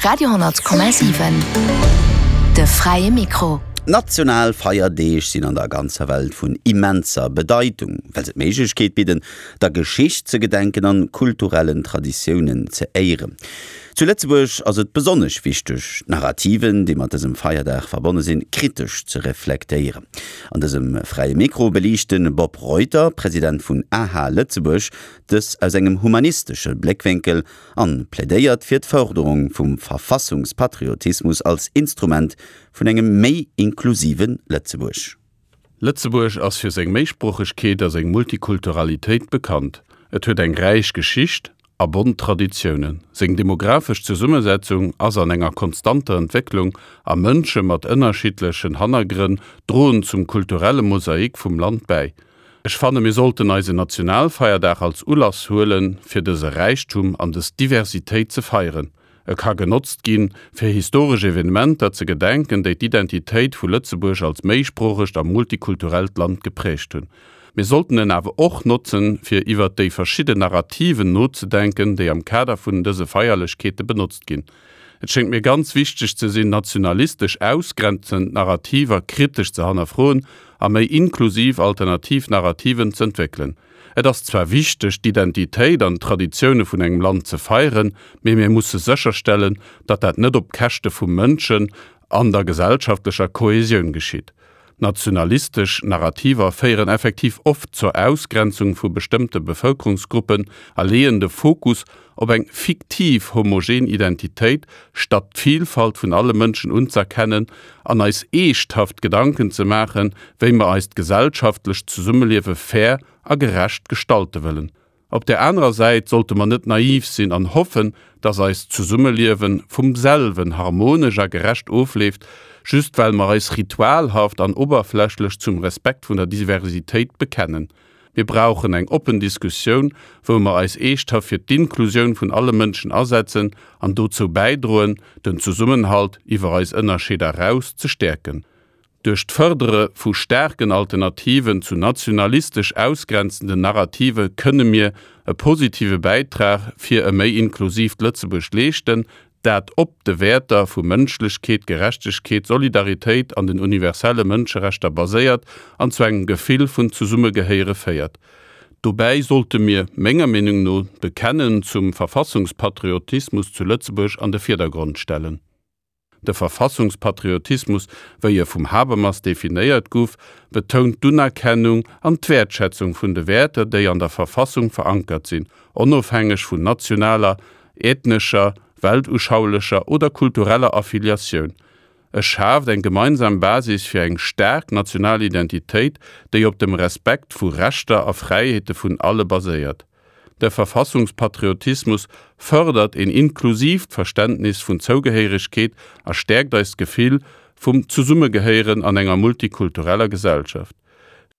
Radio 10,7 De fräie Mikro. National Feierdeeg sinn an der ganzer Welt vun immenser Bedeitung, well se d'Méiglechkeet bidden, der Geschicht ze gedenken an kulturellen Traditiounen ze éieren. Zu Lëtzebuerg ass et besonnesch wichteg, d'Narrativen, déi mat dësem Feierdag verbonne sinn, kritesch ze reflektéieren. An dësem Fräie Mikro beliicht de Bob Reuter, President vun aha Lëtzebuerg, dës aus engem humanistesche Bléckwénkel an plädéiert fir d'Fërderung vum Verfassungspatriotismus als Instrument vun engem méi inklusive Lëtzebuerg. Lëtzebuerg ass fir seng Méisproochegkeet a seng Multikulturalitéit bekannt. Et huet eng räich Geschicht a bont Traditiounen. Seng demographesch Zesummesetzung ass an enger konstanter Entwécklung a Mënsche mat ënnerschiddlechen Hannergrënn droen zum kulturelle Mosaik vum Land bäi. Ech fanne mir sollten eisen Nationalfeierdag als Ulass huelen, fir dëse Räichtum an dës Diversitéit ze feieren. E ka genotzt ginn, fir historesch Evenementer ze gedenken, déi d'Identitéit vu Lëtzebuerg als méisproochegt a multikulturellt Land gepräägt hunn. Mir sollten en awer och notzen, fir iwwer déi verschidden Narrativen nozedenken, déi am Kader vun dëse Feierlechkeete benotzt ginn. Et schéngt mir ganz wichteg ze sinn, nationalistesch ausgrenzend Narrativer kritesch ze hannerfroen a méi inklusiv alternativ Narrativen z'entwéckelen. Et ass zwar wichteg, d'Identitéit an d'Traditioune vun engem Land ze feieren, mee mir musse sécherstellen, datt dat net op Käschte vu Mënschen an der gesellschaftlecher Kohesioun geschitt. Nationalistesch Narrativer féieren effektiv oft zur Ausgrenzung vu bestëmmte Bevëlkerungsgruppen a leeën de Fokus op eng fiktiv homogen Identitéit, statt d'Vilfalt vun alle Mënschen unz'erkennen an eis eeschthaft Gedanken ze maachen, wéi mer eist gesellschaftlecht Zesummeliewe fair a gerecht gestalte wëllen. Op där anerer Säit sollte mer net naiv sinn an hoffen, dass eist Zesummeliewe vum selwen harmonesch a gerecht ofleeft, just well mer eis ritualhaft an oberflächlech zum Respekt vun der Diversitéit bekennen. Mir brauchen eng oppen Diskussioun, wou mer eis eeschthaft fir d'Inklusioun vun alle Mënschen asetzen an dozou bäidroen, den Zesummenhalt iwwer eis Ënnerscheeder eraus ze stäerken. Duerch d'Fërdere vu staarken Alternativen zu nationalistesch ausgrenzenden Narrative kënne mir e positive Bäitrag fir e méi inklusiivt Lëtzebuerg leeschten, dat op de Wäerter vu Mënschlechkeet, Gerechtegkeet, Solidaritéit an den universelle Mënscherechter baséiert an zu engem Gefill vun Zesummegehéiere féiert. Dobäi sollte mir, menger Meenung no, d'Bekennen zum Verfassungspatriotismus zu Lëtzebuerg an de Virdergrond stellen. De Verfassungspatriotismus, wéi e vum Habermas definéiert guff, betount d'Unerkennung an d'Wäertschätzung vun de Wäerter, déi an der Verfassung verankert sinn, onofhängeg vun nationaler, ethnescher, weltuschaulescher oder kultureller Affiliatioun. E schaaft eng gemeinsam Basis fir eng staark national Identitéit, déi op dem Respekt vu Rechter a Fräiheete vun alle baséiert. De Verfassungspatriotismus fërdert een inklusiivt Verständnis vun Zougehéieregkeet a stäerkt eist Gefill vum Zesummegehéieren an enger multikultureller Gesellschaft.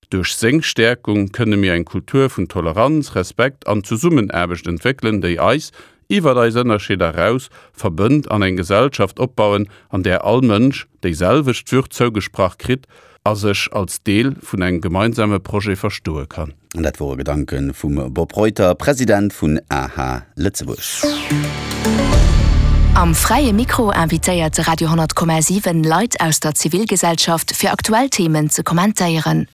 Duerch seng Stäerkung kënne mir eng Kultur vun Toleranz, Respekt an Zesummenaarbecht entwéckelen, déi eis, iwwer eis Ënnerscheeder eraus, verbënnt an eng Gesellschaft opbauen, an där all Mënsch déi selwecht Würd zougesprach kritt a sech als Deel vun engem gemeinsame Projet verstoe kann. An dat wore Gedanke vum Bob Reuter, President vun aha Lëtzebuerg. Am Fräie Mikro invitéiert de Radio 10,7 Leit aus der Zivilgesellschaft fir aktuell Themen ze kommentéieren.